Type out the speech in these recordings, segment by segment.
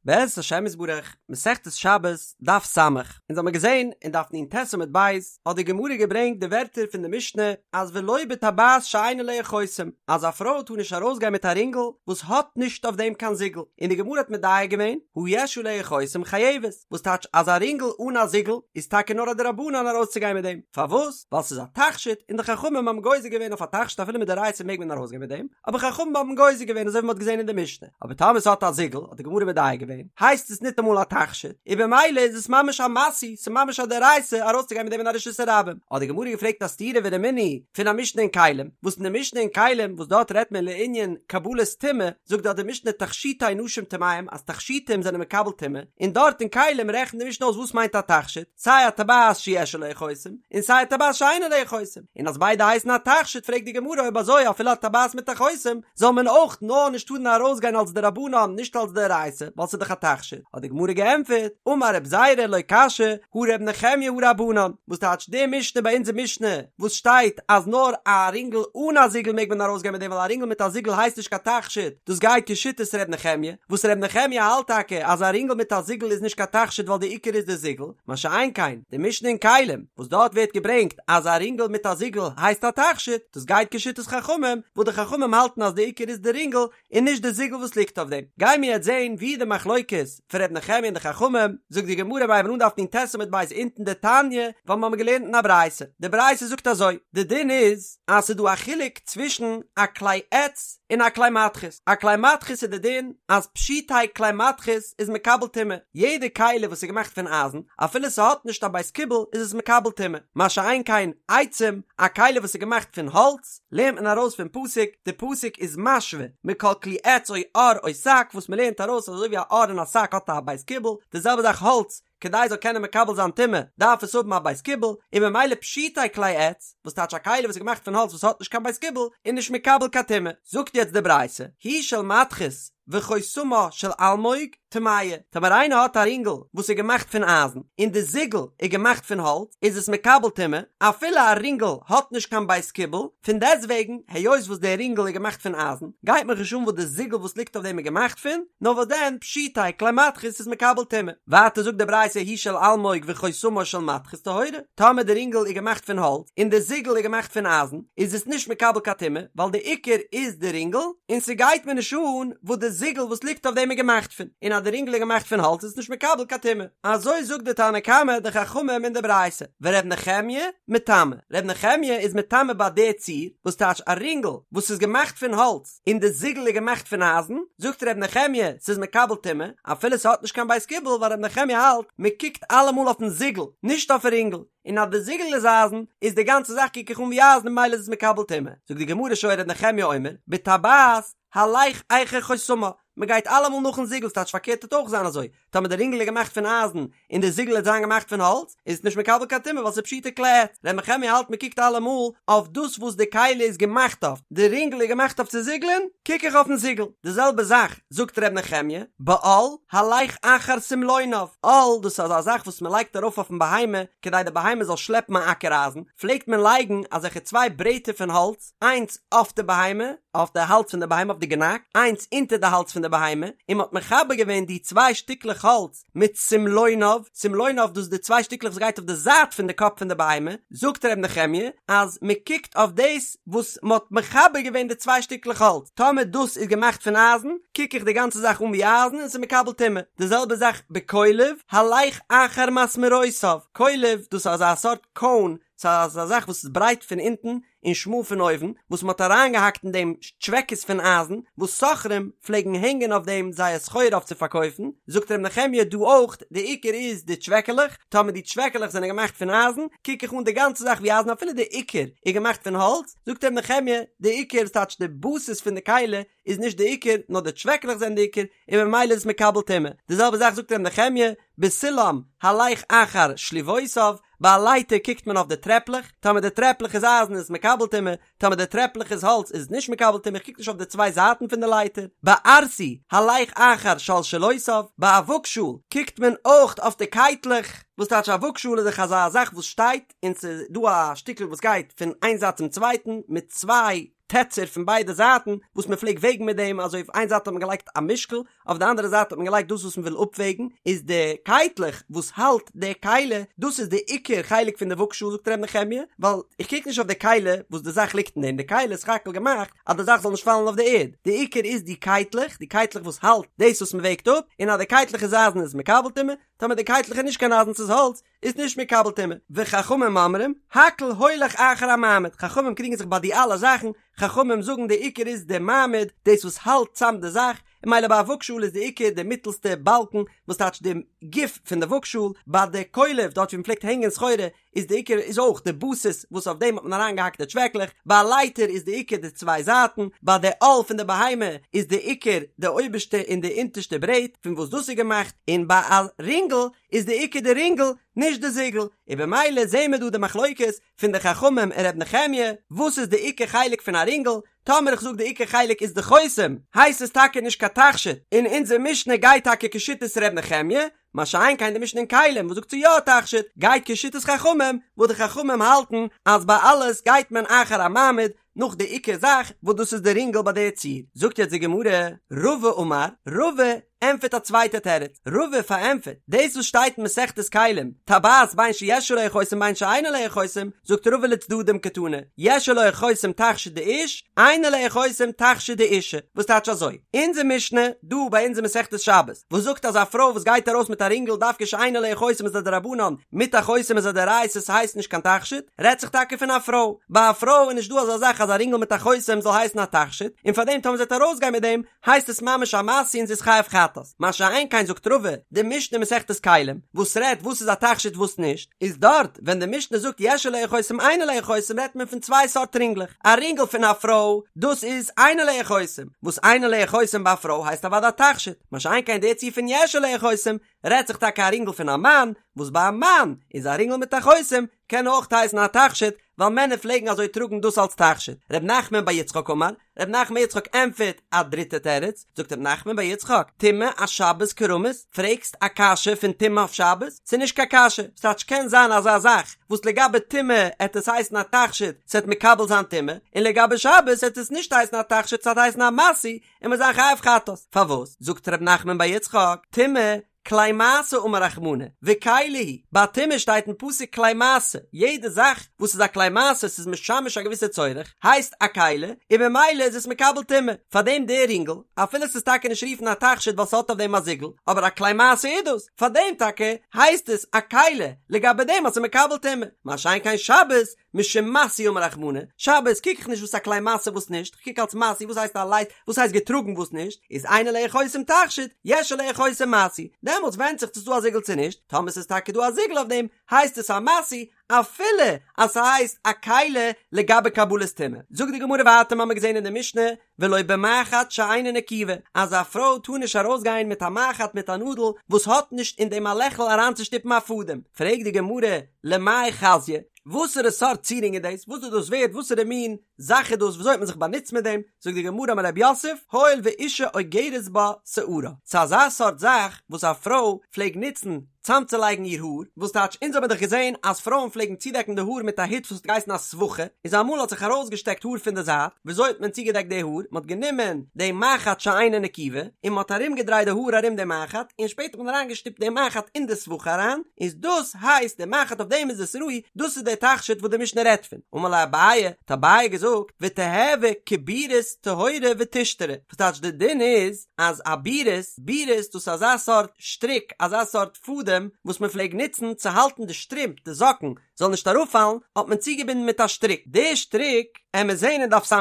בעזרת השם יתברך, מסכת שבת, דף ס', אונז האמיר געזען אין דף נ"ט עמוד ב', האט די גמרא געברענגט די ווערטער פון די משנה אז ולא בטבעת שאין עליה חותם, אז א פרוי טאר נישט ארויסגיין מיט א רינגל וואס האט נישט אויף דעם קיין זיגל, און די גמרא האט מדייק געווען, הא יש עליה חותם חייבת, וואס טייטש אז א רינגל אן א זיגל איז טאקע נאר א דרבנן ארויסצוגיין מיט דעם, פארוואס? ווייל ס'איז א תכשיט און די חכמים האבן גוזר געווען אויף א תכשיט אפילו מדאורייתא מעג מען ארויסגיין מיט דעם, אבער חכמים האבן גוזר געווען אזוי ווי מ'האט געזען אין די משנה. אבער טאמער ס'האט א זיגל, האט די גמרא מדייק געווען, הייסט עס ניטאמאל א תכשיט, און במילא איז עס ממש א משוי, ס'איז ממש א דאורייתא ארויסצוגיין מיט דעם אין א רשות הרבים. האט די גמרא געפרעגט א סתירה ורמינהי פון א משנה אין כלים, וואס אין די משנה אין כלים וואס דארט רעדט מען לענין קבלת טומאה, זאגט דארט די משנה תכשיטי נשים טמאים אז תכשיטים זענען מקבל טומאה, און דארט אין כלים רעכנט די משנה אויס וואס מיינט א תכשיט, סיי א טבעת שיש עליה חותם, און סיי א טבעת שאין עליה חותם, און אז ביידע הייסן א תכשיט פרעגט די גמרא אויב אזוי אפילו א טבעת מיט א חותם, זאל מען אויך נאר נישט טארן ארויסגיין אלס דרבנן נישט אלס דאורייתא ווייל ס'איז דאך א תכשיט, האט די גמרא געענטפערט, אמר רב זירא לא קשיא הא ר' נחמיה הא רבנן, וואס טייטש די משנה ביי אונזער משנה וואס שטייט אז נאר א רינגל אן א זיגל מעג מען ארויסגיין מיט דעם ווייל א רינגל מיט א זיגל הייסט נישט קיין תכשיט, דאס גייט כשיטת ר' נחמיה, וואס ר' נחמיה האלט טאקע אז א רינגל מיט א זיגל איז נישט קיין תכשיט ווייל די עיקר איז די זיגל, מה שאין כן די משנה אין כלים וואס דארט ווערט געברענגט אז א רינגל מיט א זיגל הייסט א תכשיט, דאס גייט כשיטת חכמים, וואס די חכמים האלטן אז די עיקר איז די רינגל און נישט די זיגל וואס ליגט אויף דעם. גיימיר יעצט זעהן ווי די מחלוקת פון ר' נחמיה און די חכמים, זאגט די גמרא מיר הייבן אן דף נ"ט עמוד ב' אונטן דתניא, ווייל מיר האבן געלערנט אין א ברייתא, די ברייתא זאגט אזוי, די דין איז אז ס'איז דא א חילוק צווישן א כלי עץ און א כלי מתכות, א כלי מתכות איז די דין אז פשוטי כלי מתכות איז מקבל טומאה, יעדע כלי וואס איז געמאכט פון אייזן, אפילו ס'האט נישט א בית קיבול איז עס מקבל טומאה, מה שאין כן עצים, א כלי וואס איז געמאכט פון האלץ, לערנט מען ארויס פון פסוק, די פסוק איז משווה מכל כלי עץ או עור או שק, וואס מ'לערנט ארויס אז אזוי ווי א עור און א שק האט א בית קיבול, די זעלבע זאך האלץ, כדי עס זאל קענען מקבל זיין טומאה דארף עס האבן א בית קיבול, און ממילא פשוטי כלי עץ, וואס טייטש א כלי וואס איז געמאכט פון האלץ וואס האט נישט קיין בית קיבול, איז נישט מקבל קיין טומאה. זאגט יעצט די ברייתא, היא של מתכות וחותמה של אלמוג, טמאה, טאמער איינער האט א רינגל וואס איז געמאכט פון אייזן, און די זיגל איז געמאכט פון האלץ, איז עס מקבל טומאה, אפילו א רינגל האט נישט קיין בית קיבול, פון דעסטוועגן, היות וואס דער רינגל איז געמאכט פון אייזן, גייט מיך נישט אן וואס די זיגל וואס ליגט אויף דעם איז געמאכט פון, נאר וואס דען, פשוטי כלי מתכות איז מקבל טומאה. ווייטער זאגט די ברייתא היא של אלמוג וחותמה של מתכות טהורה, טאמער די רינגל איז געמאכט פון האלץ, און די זיגל איז געמאכט פון אייזן, איז עס נישט מקבל קיין טומאה, ווייל די עיקר איז די רינגל, און ס'גייט מיר נישט אן וואס די זיגל וואס ליגט אויף דעם איז געמאכט פון, און אז די רינגל איז געמאכט פון האלץ איז עס נישט מקבל קיין טומאה. אזוי זאגט די תנא קמא די חכמים אין די ברייתא, ור' נחמיה מטמא, ר' נחמיה איז מטמא ביי די ציור, וואס טייטש א רינגל וואס איז געמאכט פון האלץ און די זיגל איז געמאכט פון אייזן, זאגט ר' נחמיה ס'איז מקבל טומאה, אפילו ס'האט נישט קיין בית קיבול ווייל ר' נחמיה האלט מ'קוקט אלעמאל אויפן זיגל נישט אויפן רינגל, און אז די זיגל איז אייזן איז די גאנצע זאך קוק איך אן ווי אייזן און ממילא איז עס מקבל טומאה, זאגט די גמרא שהיה ר' נחמיה אומר בטבעת הלך אחר חותמה, מען גייט אלעמאל נאכן זיגל ס'טייטש פארקערט וועט אויך זיין אזוי, טאמער די רינגל איז געמאכט פון אייזן און די זיגל וועט זיין געמאכט פון האלץ איז עס נישט מקבל קיין טומאה ווייל ס'איז פשוטי כלי עץ, ר' נחמיה האלט מען קוקט אלעמאל אויף דאס וואס די כלי איז געמאכט אויף, די רינגל איז געמאכט אויף צו זיגלען, קוק איך אויפן זיגל, די זעלבע זאך זאגט ר' נחמיה, בעול הלך אחר סמלוניו, עול דאס איז אזא זאך וואס מען לייגט ארויף אויפן בהמה כדי די בהמה זאל שלעפן א אקער אייזן, פלעגט מען לייגן אזעלכע צוויי ברעטער פון האלץ, איינס אויף די בהמה, אויף די האלז פון די בהמה אויף די גענאק, איינס אונטער די האלז פון די בהמה, און מען האט מחבר געווען די צוויי שטיקלעך האלץ מיט סמלוניו, סמלוניו דאס איז די צוויי שטיקלעך וואס גייט אויף די זייט פון די קאפ פון די בהמה, זאגט ר' נחמיה אז מען קוקט אויף דאס וואס מען האט מחבר געווען די צוויי שטיקלעך האלץ, טאמער דאס איז געמאכט פון אייזן, קוק איך די גאנצע זאך אן ווי אייזן און ס'איז מקבל טומאה, די זעלבע זאך בקולב, הלך אחר מסמרותיו, קולב דאס איז אזא סארט קאון, ס'איז אזא זאך וואס איז ברייט פון אונטן און שמאל פון אויבן, וואס מ'האט אריינגעהאקט אין דעם טשוועקעס פון אייזן, וואס סוחרים פלעגן הענגען אויף דעם זייער סחורה אויף צו פארקויפן, זאגט ר' נחמיה דא אויך, די עיקר איז די טשוועקעלעך, טאמער די טשוועקעלעך זענען געמאכט פון אייזן, קוק איך אן די גאנצע זאך ווי אייזן אפילו די עיקר איז געמאכט פון האלץ, זאגט ר' נחמיה, די עיקר, ס'טייטש די בסיס פון די כלי, איז נישט די עיקר, נאר די טשוועקעלעך זענען די עיקר, און ממילא איז עס מקבל טומאה. די זעלבע זאך זאגט ר' נחמיה, בסולם הלך אחר שליבותיו, ביי א לייטער קוקט מען אויף די טרעפלעך, טאמער די טרעפלעך איז אייזן איז עס מקבל טומאה, טאמער די טרעפלעך איז האלץ איז עס נישט מקבל טומאה, איך קוק נישט אויף די צוויי זייטן פון די לייטער. בארסי הלך אחר שלשלותיו, ביי א וואגשאהל קוקט מען אויך אויף די קייטלעך, וואס טייטש א וואגשאהל איז דאך אזא זאך וואס שטייט און ס'איז דא א שטיקל וואס גייט פון איין זייט צום צווייטן מיט צוויי טעצער פון ביידע זייטן וואס מען פלעגט וועגן מיט דעם, אזוי אויף איין זייט האט מען געלייגט א משקל, אויף די אנדערע זייט האט מען געלייגט דאס וואס מען וויל אפוועגן, איז די קייטלעך וואס האלט די כלי, דאס איז די עיקר חלק פון די וואגשאל זאגט ר' נחמיה, ווייל איך קוק נישט אויף די כלי וואס די זאך ליגט אין דעם, די כלי איז סך הכל געמאכט אז די זאך זאל נישט פאלן אויף די ערד, די עיקר איז די קייטלעך, די קייטלעך וואס האלט דאס וואס מען וועגט אפ, און אז די קייטלעך איז אייזן איז מקבל טומאה, טאמער די קייטלעך איז נישט קיין אייזן ס'איז האלץ, איז נישט מקבל טומאה, וחכמים אומרים, הכל הולך אחר המעמיד, חכמים קריגן זיך ביי די אלע זאכן, חכמים זאגן די עיקר איז די מעמיד, דאס וואס האלט צאם די זאך, און ממילא ביי א וואגשאל איז די עיקר די מיטלסטע באלקן, וואס טייטש די גוף פון די וואגשאל, ביי די קולב דארט ווי מ'פלעגט הענגען סחורה, איז די עיקר איז אויך די בסיס וואס אויף דעם האט מען אריינגעהאקט די טשוועקלעך, ביי א לייטער איז די עיקר די צוויי זייטן, ביי די עול פון די בהמה איז די עיקר די אויבערשטע און די אונטערשטע ברעט פון וואס דאס איז געמאכט, און ביי א רינגל איז די עיקר די רינגל נישט די זיגל, און במילא זעהן מיר דא די מחלוקת פון די חכמים און ר' נחמיה וואס איז די עיקר חלק פון א רינגל, טאמער איך זאג די עיקר חלק איז די חותם הייסט עס טאקע נישט קיין תכשיט, און אונזער משנה גייט טאקע כשיטת ר' נחמיה, מה שאין כן די משנה אין כלים וואס זאגט ס'איז יא א תכשיט גייט כשיטת חכמים וואס די חכמים האלטן אז ביי אלעס גייט מען אחר המעמיד נאך די עיקר זאך וואס דאס איז די רינגל ביי די ציור. זאגט יעצט די גמרא, רבא אמר, רבא ענטפערט א צווייטע תירוץ, רבא פארענטפערט דאס וואס שטייט אין מסכת כלים, טבעת בין שיש עליה חותם בין שאין עליה חותם, זאגט רבא לצדדים קתני, יש עליה חותם תכשיט דאיש, אין עליה חותם תכשיט דאישה, וואס טייטש אזוי? אונזער משנה דא ביי אונז אין מסכת שבת, וואס זאגט אז א פרוי וואס גייט ארויס מיט א רינגל דווקא שאין עליה חותם איז א דרבנן, מיט א חותם איז א דאורייתא ס'הייסט נישט קיין תכשיט, רעדט זיך טאקע פון א פרוי, ביי א פרוי איז נישט דא אזא זאך אז א רינגל מיט א חותם זאל הייסן א תכשיט, און פארדעם טאמער זי וועט ארויסגיין מיט דעם הייסט עס ממש א משוי און זי איז חייב חטאת, מה שאין כן זאגט רבא, די משנה אין מסכת כלים, וואס רעדט וואס איז א תכשיט וואס נישט, איז דארט ווען די משנה זאגט יש עליה חותם אין עליה חותם רעדט מען פון צוויי סארט רינגלעך, א רינגל פון א פרוי, דאס איז אין עליה חותם, וואס אין עליה חותם ביי א פרוי הייסט אוודאי א תכשיט, מה שאין כן די ציור פון יש עליה חותם, רעדט זיך טאקע א רינגל פון א מאן, וואס ביי א מאן איז א רינגל מיט א חותם קען אויך הייסן א תכשיט, ווייל מענער פלעגן אזוי טראגן דאס אלס תכשיט. ר' נחמן בר יצחק אמר, ר' נחמן בר יצחק ענטפערט א דריטע תירוץ, זאגט ר' נחמן בר יצחק, טומאה אשבת קרמית, פרעגסט א קשיא פון טומאה אויף שבת? ס'איז נישט קיין קשיא, ס'טייטש קען זיין אזא זאך וואס לגבי טומאה עט עס הייסן א תכשיט, ס'עט מקבל זיין טומאה, און לגבי שבת עט עס נישט הייסן א תכשיט ס'עט הייסן א משוי, און מ'עט זיין חייב חטאת. פארוואס? זאגט ר' נחמן בר יצחק, טומאה כלי משא אמר רחמנא, וכלי היא, ביי טומאה שטייט אין פסוק כלי משא, יעדע זאך וואס איז א כלי משא, ס'איז משמש א געוויסע צורך, הייסט א כלי, און ממילא איז עס מקבל טומאה, פארדעם דער רינגל, אפילו ס'איז טאקע נישט רופן א תכשיט ווייל ס'האט אויף דעם א זיגל, אבער א כלי משא איז דאס, פארדעם טאקע הייסט עס א כלי, לגבי דעם אז ס'איז מקבל טומאה, מה שאין כן שבת, משום משוי אמר רחמנא, שבת קוק איך נישט וואס א כלי משא וואס נישט, כ'קוק אלס משוי וואס הייסט א לייט וואס הייסט געטראגן וואס נישט, איז אין עליה חותם תכשיט, יש עליה חותם משוי, דעמאלטס ווענדט זיך צו ס'דא א זיגל צו נישט, טאמער ס'איז טאקע דא א זיגל אויף דעם, הייסט עס א משוי, אפילו אז ס'הייסט א כלי לגבי קבלת טומאה. זאגט די גמרא ווייטער מ'האמיר געזען אין די משנה, ולא במחט שאינה נקובה, אז א פרוי טאר נישט ארויסגיין מיט א מחט מיט א נאדל וואס האט נישט אין דעם א לעכל אריינצושטופן א פאדעם, פרעגט די גמרא, למאי חזיא, וואסערע סארט צירונג איז דאס, וואס איז דאס ווערד, וואסערע מין זאך איז דאס, וויאזוי האט מען זיך באנוצט מיט דעם, זאגט די גמרא אמר רב יוסף, הואיל ואישה אוגרת בה שערה, ס'איז אזא סארט זאך וואס א פרוי פלעג נוצן צאמצולייגן איר האר, וואס טייטש אונז האבן דאך געזען אז פרויען פלעגן צודעקן די האר מיט א הוט וואס האט געהייסן א סבכה, איז אמאל האט זיך ארויסגעשטעקט האר פון די זייט, וויאזוי האט מען צוגעדעקט די האר, מען האט גענומען די מחט שאינה נקובה, און מען האט ארומגעדרייט די האר ארום די מחט, און שפעטער האט מען אריינגעשטופט די מחט אין די סבכה אריין, איז דאס הייסט די מחט אויף דעם איז עס ראוי, דאס איז די תכשיט וואס די משנה רעדט פון. אמר ליה אביי, האט אביי געזאגט, ותיהוי כבירית טהורה ותשתרי, וואס טייטש די דין איז אז א בירית, בירית דאס איז אזא סארט שטריק, אזא סארט פאדעם וואס מען פלעג נוצן צו האלטן די שטרימפ, די זאקן, זאל נישט אראפפאלן, האט מען צוגעבינדן מיט א שטריק. די שטריק, עמיר זעהן אין דף ס"ג,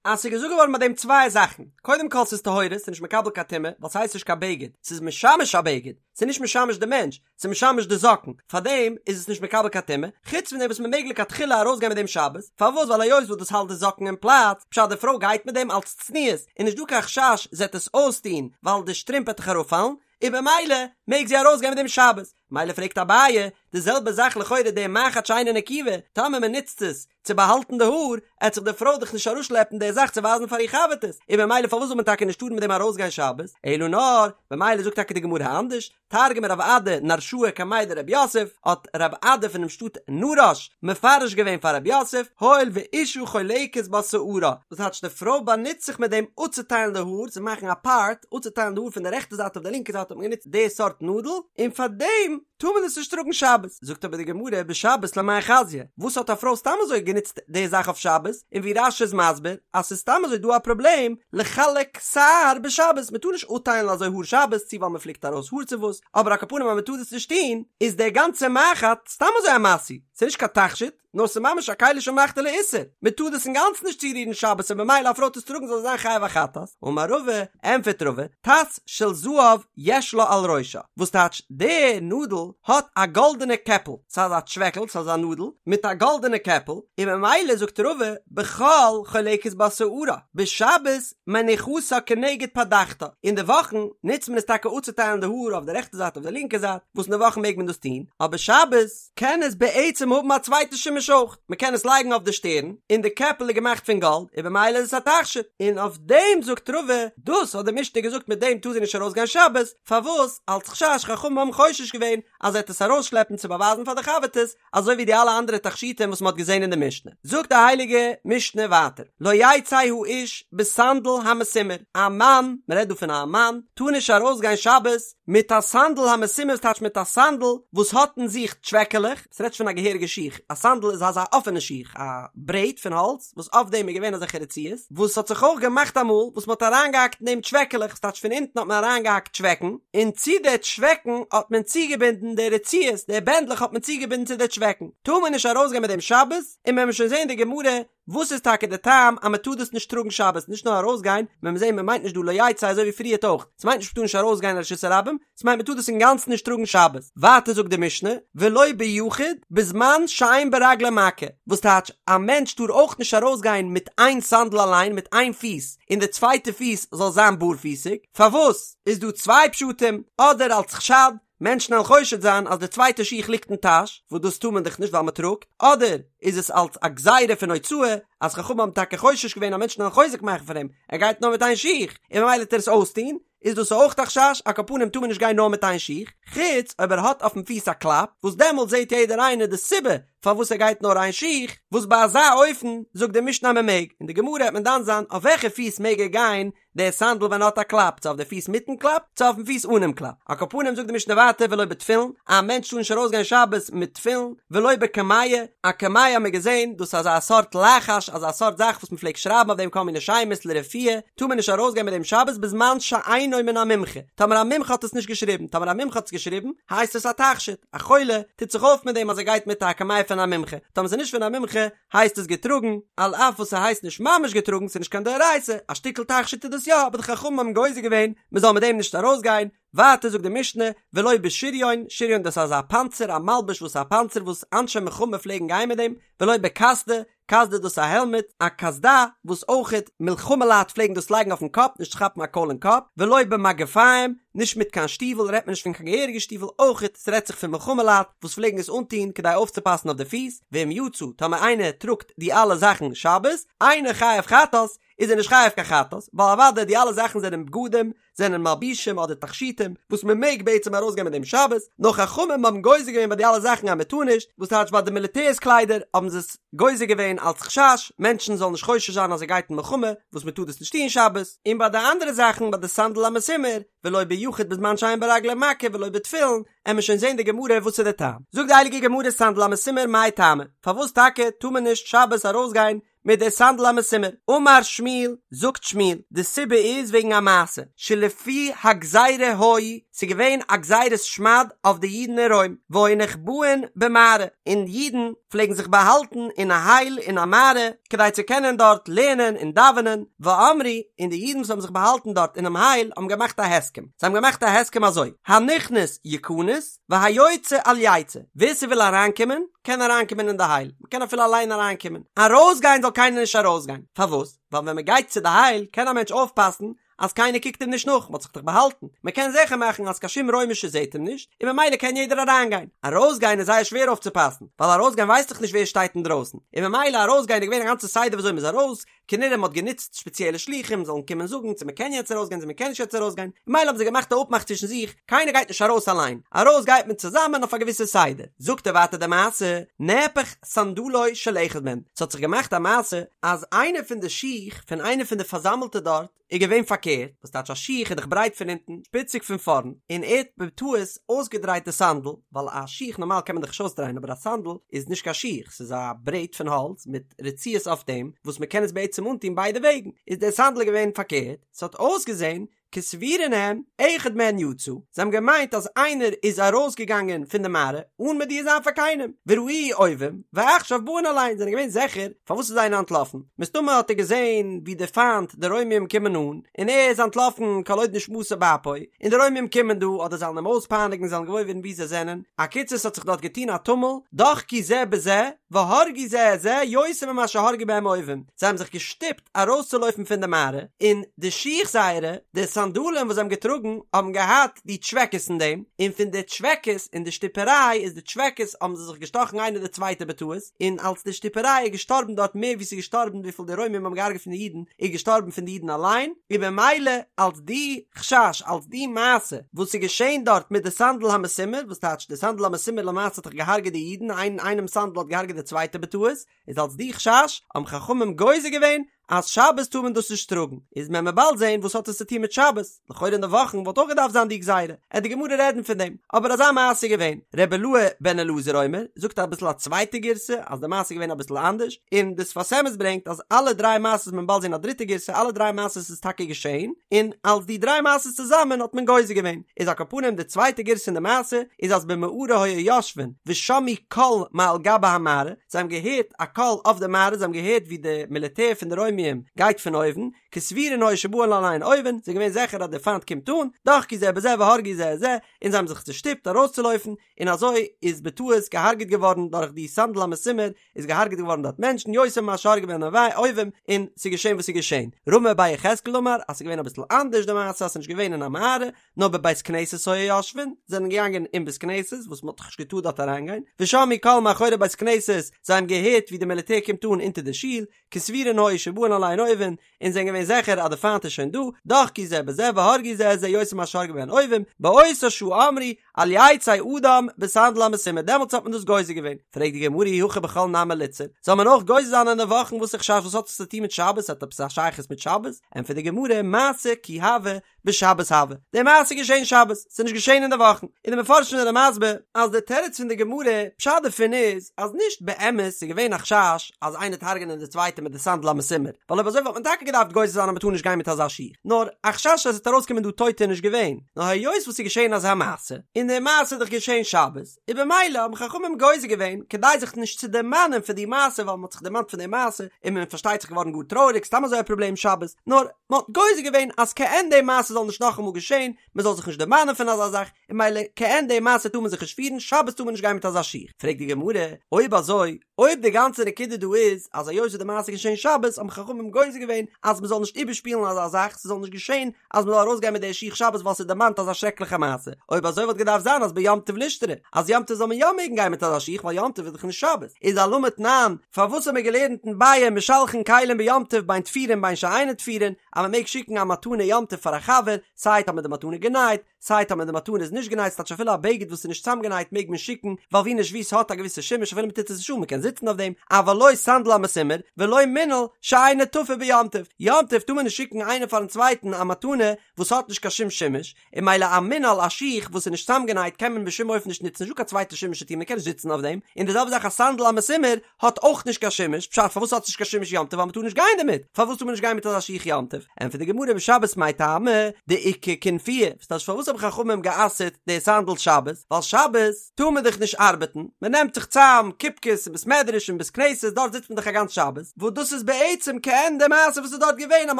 אז ס'איז געזאגט געווארן ביי דעם צוויי זאכן, קודם כל ס'איז טהורה, ס'איז נישט מקבל קיין טומאה, ווייל ס'הייסט נישט קיין בגד, ס'איז משמש א בגד, ס'איז נישט משמש די מענטש, ס'איז משמש די זאקן, פארדעם איז עס נישט מקבל קיין טומאה, חוץ פון דעם וואס מ'מעג לכתחילה ארויסגיין מיט דעם שבת, פארוואס ווייל היות וואס דאס האלט די זאקן אין פלאץ, פשט די פרוי גייט מיט דעם אלץ צניעות, איז נישט דא קיין חשש זי עט עס אויסטון ווייל די שטרימפ עט דאך אראפפאלן, און במילא מעג זי ארויסגיין מיט דעם שבת. מילא פרעגט אביי, די זעלבע זאך לכאורה די מחט שאינה נקובה, טאמער מען נוצט עס צו באהאלטן די האר, עט זיך די פרוי דאך נישט אראפשלעפן די זאך צו ווייזן פאר איר חבר'טעס, און במילא פארוואס זאל מען טאקע נישט טארן מיט דעם ארויסגיין שבת, אלא נאר, במילא זאגט טאקע די גמרא אנדערש, תרגמא רב אדא נרשאה קמיה דרב יוסף, האט רב אדא פונעם שטאט נרש מפרש געווען פאר רב יוסף, הואיל ואשה חולקת בה שערה, דאס טייטש די פרוי באנוצט זיך מיט דעם אפצוטיילן די האר, צו מאכן א פארט, אפצוטיילן די האר פון די רעכטע זייט אויף די לינקע זייט האט מען גענוצט די סארט נאדל, און פאר דעם טאר מען עס נישט טראגן שבת. זאגט אבער די גמרא בשבת למאי חזיא, וואס האט א פרוי סתם אזוי גענוצט די זאך אויף שבת, און ווי רש"י איז מסביר אז ס'איז סתם אזוי דא א פראבלעם לחלק שער בשבת, מ'טאר נישט אפטיילן אזוי האר שבת, צו ווייל מ'פליקט ארויס האר צו וואס, אבער על כל פנים אז מ'טאר דאס נישט טון, איז דער גאנצער מחט סתם אזוי א משוי, ס'איז נישט קיין תכשיט, נאר ס'איז ממש א כלי שמלאכתו לאיסור, מ'טאר דאס אינגאנצן נישט צורירן שבת און במילא א פרוי טוט עס טראגן זאל זי זיין חייב א חטאת, אמר רבא, ענפערט רבא, טס של זהב יש לה על ראשה, וואס טייטש די נאדל האט א גאלדענע קעפל, ס'איז אזא טשוועקל, ס'איז אזא נאדל מיט א גאלדענע קעפל, און ממילא זאגט רבא, בחול חולקת בה שערה, בשבת מניחתה כנגד פדחתה, אין די וואכן נוצט מען עס טאקע אפצוטיילן די האר אויף די רעכטע זייט אויף די לינקע זייט, וואס אין די וואכן מעג מען דאס טון, אבער שבת קען עס בעצם האבן א צווייטע שימוש אויך, מען קען עס לייגן אויף די שטערן, און די קעפל איז געמאכט פון גאלד, און במילא איז עס א תכשיט, און אויף דעם זאגט רבא, דאס האט די משנה געזאגט מיט דעם טאר זי נישט ארויסגיין שבת, פארוואס? אלץ חשש חכמים האבן חושש געווען אז זי וועט עס ארויסשלעפן צו באווייזן פאר די חבר'טעס, אזוי ווי די אלע אנדערע תכשיטים וואס מען האט געזען אין די משנה. זאגט די הייליגע משנה ווייטער, לא יצא האיש בסנדל המסומר, א מאן, מען רעדט דא פון א מאן, טאר נישט ארויסגיין שבת מיט א סנדל המסומר, ס'טייטש מיט א סנדל וואס האט אין זיך טשוועקעלעך, ס'רעדט זיך פון א געהעריגע שיך, א סנדל איז אזא אפענע שיך, א ברעט פון האלץ וואס אויף דעם איז געווען אזעלכע רצועות, וואס האט זיך אויך געמאכט אמאל וואס מ'האט אריינגעהאקט אין דעם טשוועקעלעך, ס'טייטש פון אונטן האט מען אריינגעהאקט טשוועקן, און צו די טשוועקן האט מען צוגעבינדן די רצועות, די בענדלעך האט מען צוגעבינדן צו די טשוועקן, טאר מען נישט ארויסגיין מיט דעם שבת, און מען וועט שוין זען די גמרא וואס איז טאקע די טעם אז מען טאר דאס נישט טראגן שבת, נישט נאר ארויסגיין, מען וועט זען מען מיינט נישט דא לא יצא אזוי ווי פריערט אויך, ס'מיינט נישט מען טאר נישט ארויסגיין אין רשות הרבים, ס'מיינט מען טאר דאס אינגאנצן נישט טראגן שבת. ווייטער זאגט די משנה, ולא ביחיד, בזמן שאין ברגלו מכה, וואס טייטש, א מענטש טאר אויך נישט ארויסגיין מיט איין סאנדל אליין, מיט איין פיס, און די צווייטע פיס זאל זיין בארפיסיג, פארוואס? איז דא צוויי פשטים, אדער אלס חשד, מענטשן וועלן חושד זיין אז די צווייטע שיך ליגט אין טאש, וואס דאס טאר מען דאך נישט ווייל מען טראגט, אדער איז עס אלס א גזירה פון הוצאה, אז חכמים האבן טאקע חושש געווען אז מענטשן וועלן חוזק מאכן פון אים, ער גייט נאר מיט איין שיך, און ממילא וועט ער עס אויסטון, איז דאס אויך א חשש, על כל פנים טאר מען נישט גיין נאר מיט איין שיך, חוץ אויב ער האט אויפן פיס א קלאפ, וואס דעמאלט זעט יעדער איינער די סיבה פארוואס ער גייט נאר איין שיך, וואס ביי אזא אופן זאגט די משנה אז מען מעג, אין די גמרא וועט מען דן זיין אויף וועלכע פיס מעג ער גיין די סאנדל ווען ער האט א קלאפ, צו אויף די פיס מיטן קלאפ, צו אויפן פיס אנעם קלאפ. על כל פנים זאגט די משנה ווייטער ולא בתפילין, א מענטש טאר נישט ארויסגיין שבת מיט תפילין, ולא בקמיע, א קמיע האט מען געזען, דאס איז אזא סארט לחש, אזא סארט זאך וואס מען פלעגט שרייבן אויף דעם כל מיני שמות לרפואה, טאר מען נישט ארויסגיין מיט דעם שבת בזמן שאינו מן המומחה, טאמער א מומחה האט עס נישט געשריבן, טאמער א מומחה האט עס געשריבן, הייסט עס א תכשיט, א חולה טוט זיך אויף מיט דעם אז ער גייט מיט א קמיע פון א מומחה, טאמער ס'איז נישט פון א מומחה, הייסט עס געטראגן, על אף וואס ס'הייסט נישט ממש געטראגן, ס'איז נישט קיין דאורייתא, א שטיקל תכשיט איז דאס יא, אבער די חכמים האבן גוזר געווען מ'זאל מיט דעם נישט ארויסגיין, ווייטער זאגט די משנה, ולא בשריון, שריון דאס איז אזא פאנצער, א מלבוש וואס איז א פאנצער וואס אנשי מלחמה פלעגן גיין מיט דעם, ולא בקסדה, קסדה דאס איז א העלמעט, א קסדה, וואס אויכעט מלחמה לייט פלעגן דאס לייגן אויפן קאפ, נישט צו כאפן א קויל אין קאפ, ולא במגפיים, נישט מיט קיין שטיוול, רעדט מען נישט פון קיין געהעריגע שטיוול, אויכעט ס'רעדט זיך פון מלחמה לייט וואס פלעגן עס אנטון כדי אויפצופאסן אויף די פיס, ואם יצא, טאמער איינער טראגט די אלע זאכן שבת, אינו חייב חטאת, איז ער נישט חייב קיין חטאת, ווייל אוודאי די אלע זאכן זענען בגדים, זענען מלבישים אדער תכשיטים וואס מען מעג בעצם ארויסגיין מיט דעם שבת, נאר חכמים האבן גוזר געווען ביי די אלע זאכן אז מען טאר נישט, וואס טייטש ביי די מיליטערס קליידער האבן זיי עס גוזר געווען אלס חשש מענטשן זאלן נישט חושש זיין אז ער גייט אין מלחמה וואס מען טאר דאס נישט טון שבת, און ביי די אנדערע זאכן ביי די סנדל המסומר ולא ביחיד בזמן שאין ברגלו מכה ולא בתפילין, עמיר שוין זען די גמרא וואס איז די טעם, זאגט די הייליגע גמרא סנדל המסומר מאי טעמא, פארוואס טאקע טאר מען נישט שבת ארויסגיין מיט די סנדל המסומר. אמר שמואל, זאגט שמואל, די סיבה איז וועגן א מעשה, שלפי הגזירה היו, ס'איז געווען א גזירת שמד אויף די אידן אין רוים, והיו נחבאין במערה, און אידן פלעגן זיך באהאלטן אין א הייל אין א מערה, כדי צו קענען דארט לערנען און דאווענען, ואמרו, און די אידן וואס האבן זיך באהאלטן דארט אינעם הייל האבן געמאכט א הסכם, זיי האבן געמאכט א הסכם אזוי, הנכנס יכנס, והיוצא אל יצא, ווער ס'וויל אריינקומען, קען אריינקומען אין די הייל, מ'קען אפילו אליין אריינקומען, ארויסגיין זאל קיינער נישט ארויסגיין, פארוואס? ווייל ווען מ'גייט צו די הייל קען א מענטש אויפפאסן אז קיינער קוקט אים נישט נאך, מ'האט זיך דאך באהאלטן, מ'קען זיכער מאכן אז קיין שום רוימישע זעט אים נישט, און ממילא קען יעדער אריינגיין. ארויסגיין איז זייער שווער אויפצופאסן, ווייל ארויסגיין ווייסט דאך נישט ווער שטייט אינדרויסן, און ממילא ארויסגיין איז געווען א גאנצע סדר וויאזוי מ'איז ארויס, כנראה מ'האט גענוצט שפעציעלע שלוחים זאלן קומען זאגן צו מ'קען יעצט ארויסגיין צו מ'קען נישט יעצט ארויסגיין, ממילא האבן זיי געמאכט א אפמאך צווישן זיך, קיינער גייט נישט ארויס אליין, ארויס גייט מען צוזאמען אויף א געוויסע סדר. זאגט ער ווייטער די מעשה, נהפך סנדלו של אחד מהם, ס'האט זיך געמאכט א מעשה אז איינער פון די שיך פון איינער פון די פארזאמלטע דארט איז געווען פארקערט, וואס טייטש א שיך איז דאך ברייט פון אונטן, שפיציג פון פארנט, און ער האט בטעות אויסגעדרייט די סאנדל, ווייל א שיך נארמאל קען מען דאך נישט אויסדרייען אבער א סאנדל איז נישט קיין שיך, ס'איז א ברעט פון האלץ מיט רצועות אויף דעם וואס מ'קען עס בעצם אנטון ביידע וועגן, איז דער סאנדל געווען פארקערט, ס'האט אויסגעזען כסבורין הם, אחד מהן יצא, זיי האבן געמיינט אז איינער איז ארויסגעגאנגען פון די מערה אן מודיע זיין פאר קיינעם, וראוהו אויבים, ועכשיו באין עליהן, זענען געווען זיכער פארוואס איז איינער אנטלאפן, מסתמא האט ער געזען ווי די פיינט די רוימים קומען אן, און ער איז אנטלאפן כל עוד נשמתו באפו, און די רוימים קומען דא, אדער זיי וועלן אים אויספייניגן זיי וועלן געוואויר ווערן וואו זיי זענען, אקיצור ס'האט זיך דארט געטון א טומל, דחקו זה בזה, והרגו זה את זה יותר ממה שהרגו בהם אויבים, זיי האבן זיך געשטופט, ארויסצולויפן פון די מערה, און די שיך זייערע, די סאנדאלען וואס זיי האבן געטראגן, האבן געהאט די טשוועקעס אין דעם, און פון די טשוועקעס און די שטופעריי איז די טשוועקעס האבן זיי זיך געשטאכן איינער די צווייטע בטעות, און אלס די שטופעריי איז געשטארבן דארט מער ווי ס'איז געשטארבן וויפיל די רוימים האבן געהארגעט פון די אידן, איז געשטארבן פון די אידן אליין, און במילא אלס די חשש, אלס די מעשה וואס איז געשען דארט מיט די סנדל המסומר, וואס טייטש די סנדל המסומר למעשה האט דאך געהארגעט די אידן, איין איינעמ'ס סנדל האט געהארגעט די צווייטע בטעות, איז אלס די חשש האבן חכמים גוזר געווען אז שבת טאר מען דאס נישט טראגן, איז מען מען באלד זעהן וואס האט עס צו טון מיט שבת, לכאורה אין די וואכן וואלט אויך געדארפט זיין די גזירה, עט די גמרא רעדן פון דעם, אבער אזא מעשה איז געווען, ר' אילעא בן אלעזר אומר, זאגט אביסל א צווייטע גירסא אז די מעשה איז געווען אביסל אנדערש, און די שפת אמת ברענגט אז אלע דריי מעשות מען באלד זעהן א דריטע גירסא אלע דריי מעשות איז טאקע געשעהן, און אלס די דריי מעשות צוזאמען האט מען גוזר געווען, איז על כל פנים די צווייטע גירסא אין די מעשה איז אז במערה היו יושבין ושמעו קול מעל גבי המערה, זיי האבן געהערט א קול אויף די מערה, זיי האבן געהערט ווי די מיליטער פון די רוימיים גייט פון אויבן, כסבורין היו שבאין עליהן אויבים, זיי זענען געווען זיכער אז דער פיינט קומט אן, דחקו זה בזה והרגו זה את זה, און זיי האבן זיך צושטופט ארויסצולויפן, און אזוי איז בטעות געהארגעט געווארן דורך די סנדל המסומר, איז געהארגעט געווארן דארט מענטשן, יותר ממה שהרגו בהן אויבים, און ס'איז געשען וואס ס'איז געשען. רמי בר יחזקאל אמר אז ס'איז געווען אביסל אנדערש די מעשה אז ס'איז נישט געווען אין א מערה, נאר בבית כנסת היו יושבין, זענען געגאנגען אין בית כנסת, וואס מ'האט דאך נישט געטארט דארט אריינגיין, ושמעו קול מאחורי בית כנסת, זיי האבן געהערט ווי די מיליטער קומט אן אונטער די שול, כסבורין היו שבאין עליהן אויבים, און זענען געווען זיכער אז די פיינט איז שוין דא, דחקו זה בזה והרגו זה את זה יותר ממה שהרגו בהן אויבים, באותה שעה אמרו, אל יצא אדם בסנדל המסומר, דעמאלטס האט מען דאס גוזר געווען. פרעגט די גמרא אי הכי בחול נמי ליתסר, זאל מען אויך גוזר זיין אין די וואכן וואס איז חשש וואס האט עס צו טון מיט שבת, האט עפעס א שייכות מיט שבת? ענטפערט די גמרא, מעשה כי הוה, בשבת הוה, די מעשה איז געשען שבת, ס'איז נישט געשען אין די וואכן, און די מפרשים זענען מסביר אז די תירוץ פון די גמרא, פשט דערפון איז, אז נישט באמת איז געווען א חשש אז איינער וועט הרג'נען די צווייטע מיט די סנדל המסומר, ווייל אויב אזוי וואלט מען טאקע געדארפט גוזר זיין אז מ'טאר נישט גיין מיט אזא שיך, נאר א חשש אז עס וועט ארויסקומען דא טויטע איז נישט געווען, נאר היות וואס ס'איז געשען אזא מעשה, און די מעשה איז דאך געשען שבת, און במילא האבן חכמים גוזר געווען כדי זיך נישט צו דערמאנען פון די מעשה ווייל מען האט זיך דערמאנט פון די מעשה און מען פארשטייט זיך געווארן גאר טרויעריג סתם אזוי א פראבלעם שבת נאר מען האט גוזר געווען אז כעין די מעשה זאל נישט נאכאמאל געשען מען זאל זיך נישט דערמאנען פון אזא זאך און במילא כעין די מעשה טאר מען זיך נישט פירן שבת טאר מען נישט גיין מיט אזא שיך פרעגט די גמרא אויב אזוי אויב די גאנצע נקודה דא איז אז היות די מעשה איז געשען שבת האבן חכמים גוזר געווען אז מען זאל נישט איבערשפילן אזא זאך ס'זאל נישט געשען אז מען זאל ארויסגיין מיט די שיך שבת ווייל ס'דערמאנט אזא שרעקליכע מעשה, אויב אזוי וואלט געדארפט זיין אז ביום טוב לישתרי, אז יום טוב זאל מען יא מעגן גיין מיט אזא שיך ווייל יום טוב איז דאך נישט שבת, איז אלמה תנן, פארוואס האט מען געלערנט אין ביעא משלחין כלים ביום טוב בין תפורין בין שאינן תפורין, אז מען מעג שיקן א מתנה יום טוב פאר א חבר, סיי טאמער די מתנה גענייט, סיי טאמער די מתנה איז נישט גענייט ס'טייטש אפילו א בגד וואס איז נישט צאמגענייט מעג מען שיקן, ווייל ווי נישט ווי ס'האט א געוויסע שימוש אפילו מ'טוט עס נישט אן מ'קען זיצן אויף דעם, אבל לא סנדל המסומר ולא מנעל שאינו תפור ביום טוב, יום טוב טאר מען נישט שיקן איינער פארן צווייטן א מתנה וואס האט נישט קיין שום שימוש, און מילא א מנעל א שיך וואס איז נישט צאמגענייט קען מען בשום אופן נישט נוצן נישטא קיין צווייטע שימוש צו טון מ'קען נישט זיצן אויף דעם, און די זעלבע זאך א סנדל המסומר האט אויך נישט קיין שימוש, פשט פארוואס האט עס נישט קיין שימוש יום טוב ווייל מ'טאר נישט גיין דערמיט, פארוואס טאר מען נישט גיין מיט אזא שיך יום טוב? ענטפערט די גמרא בשבת מאי טעמא דאיכא כינופיא, וואס טייטש פארוואס? פארוואס האבן חכמים גע'אסר'ט די סאנדל שבת? ווייל שבת טאר מען דאך נישט ארבעטן, מען נעמט זיך צאם קופקעס אין בית מדרש און בית כנסת, דארט זיצט מען דאך א גאנץ שבת, וואס דאס איז בעצם כעין די מעשה וואס איז דארט געווען אז מען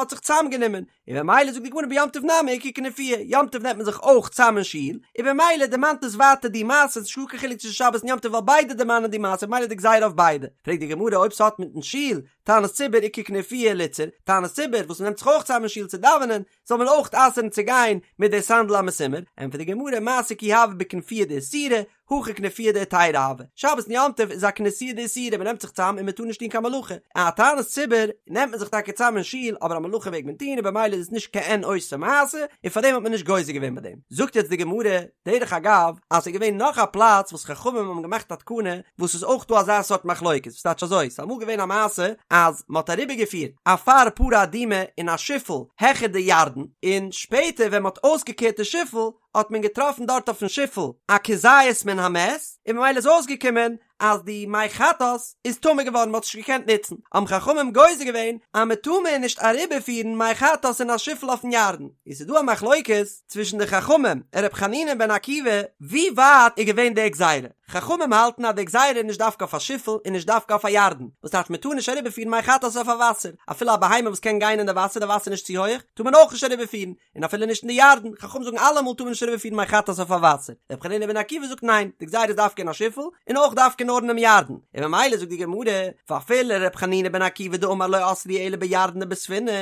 האט זיך צאם גענומען, און במילא זאגט די גמרא ביום טוב נמי איכא כנופיא, יום טוב נעמט מען זיך אויך צאם אין שול, און במילא דערמאנט עס ווייטער די מעשה, ס'איז נישטא קיין חילוק צווישן שבת און יום טוב ווייל ביידע דערמאנען די מעשה במילא די גזירה אויף ביידע. פרעגט די גמרא אויב ס'האט מיטן שול, תענית ציבור איכא כנופיא ליתסר, תענית ציבור וואס מ'נעמט זיך אויך צאם אין שול צו דאווענען, זאל מען אויך אסר'ן צו גיין מיט די סנדל המסומר, ענטפערט די גמרא מעשה כי הוה בכנופיא דאיסורא, הכא כנופיא דהיתרא הוה, שבת און יום טוב איז א כנסיה דאיסורא, מען נעמט זיך צאם און מען טאר נישט טון קיין מלאכה, א תענית ציבור נעמט מען זיך טאקע צאם אין שול אבער א מלאכה מעג מען טון און במילא איז עס נישט כעין אותה מעשה און פארדעם האט מען נישט גוזר געווען ביי דעם. זאגט יעצט די גמרא, דרך אגב, אז ס'איז געווען נאך א פלאץ וואס חכמים האבן געמאכט א תקנה וואס איז אויך דא אזא סארט מחלוקת, וואס טייטש אזוי, ס'איז אמאל געווען א מעשה אז מ'האט אריבערגעפירט אפר פרה אדומה אין א שיפל העכער די ירדן, און שפעטער ווען מ'האט אויסגעקערט די שיפל האט מען געטראפן דארט אויפן שיפל א כזית מן המת, און ממילא איז אויסגעקומען אז די מי חטאת איז טמא געווארן, מ'האט עס נישט געקענט נוצן, האבן חכמים גוזר געווען אז מ'טאר מער נישט אריבערפירן מי חטאת אין א שיפל אויפן ירדן, און ס'איז דא א מחלוקת צווישן די חכמים און ר' חנינא בן עקיבא ווי ווייט איז געווען די גזירה, חכמים האלטן אז די גזירה איז נישט דווקא אויף א שיפל און נישט דווקא אויף א ירדן, וואס טייטש מ'טאר נישט אריבערפירן מי חטאת אויף א וואסער, אפילו א בהמה וואס קען גיין אין די וואסער, די וואסער איז נישט צו הויעך, טאר מען אויך נישט אריבערפירן, און אפילו נישט אין די ירדן, חכמים זאגן אלעמאל טאר מען נישט אריבערפירן מי חטאת אויף א וואסער, רבי חנינא בן עקיבא זאגט ניין, די גזירה איז דווקא אין א שיפל, און אויך דווקא נאר אינעם ירדן, און ממילא זאגט די גמרא, ואפילו רבי חנינא בן עקיבא דאמר לא אסרו אלא בירדן ובספינה,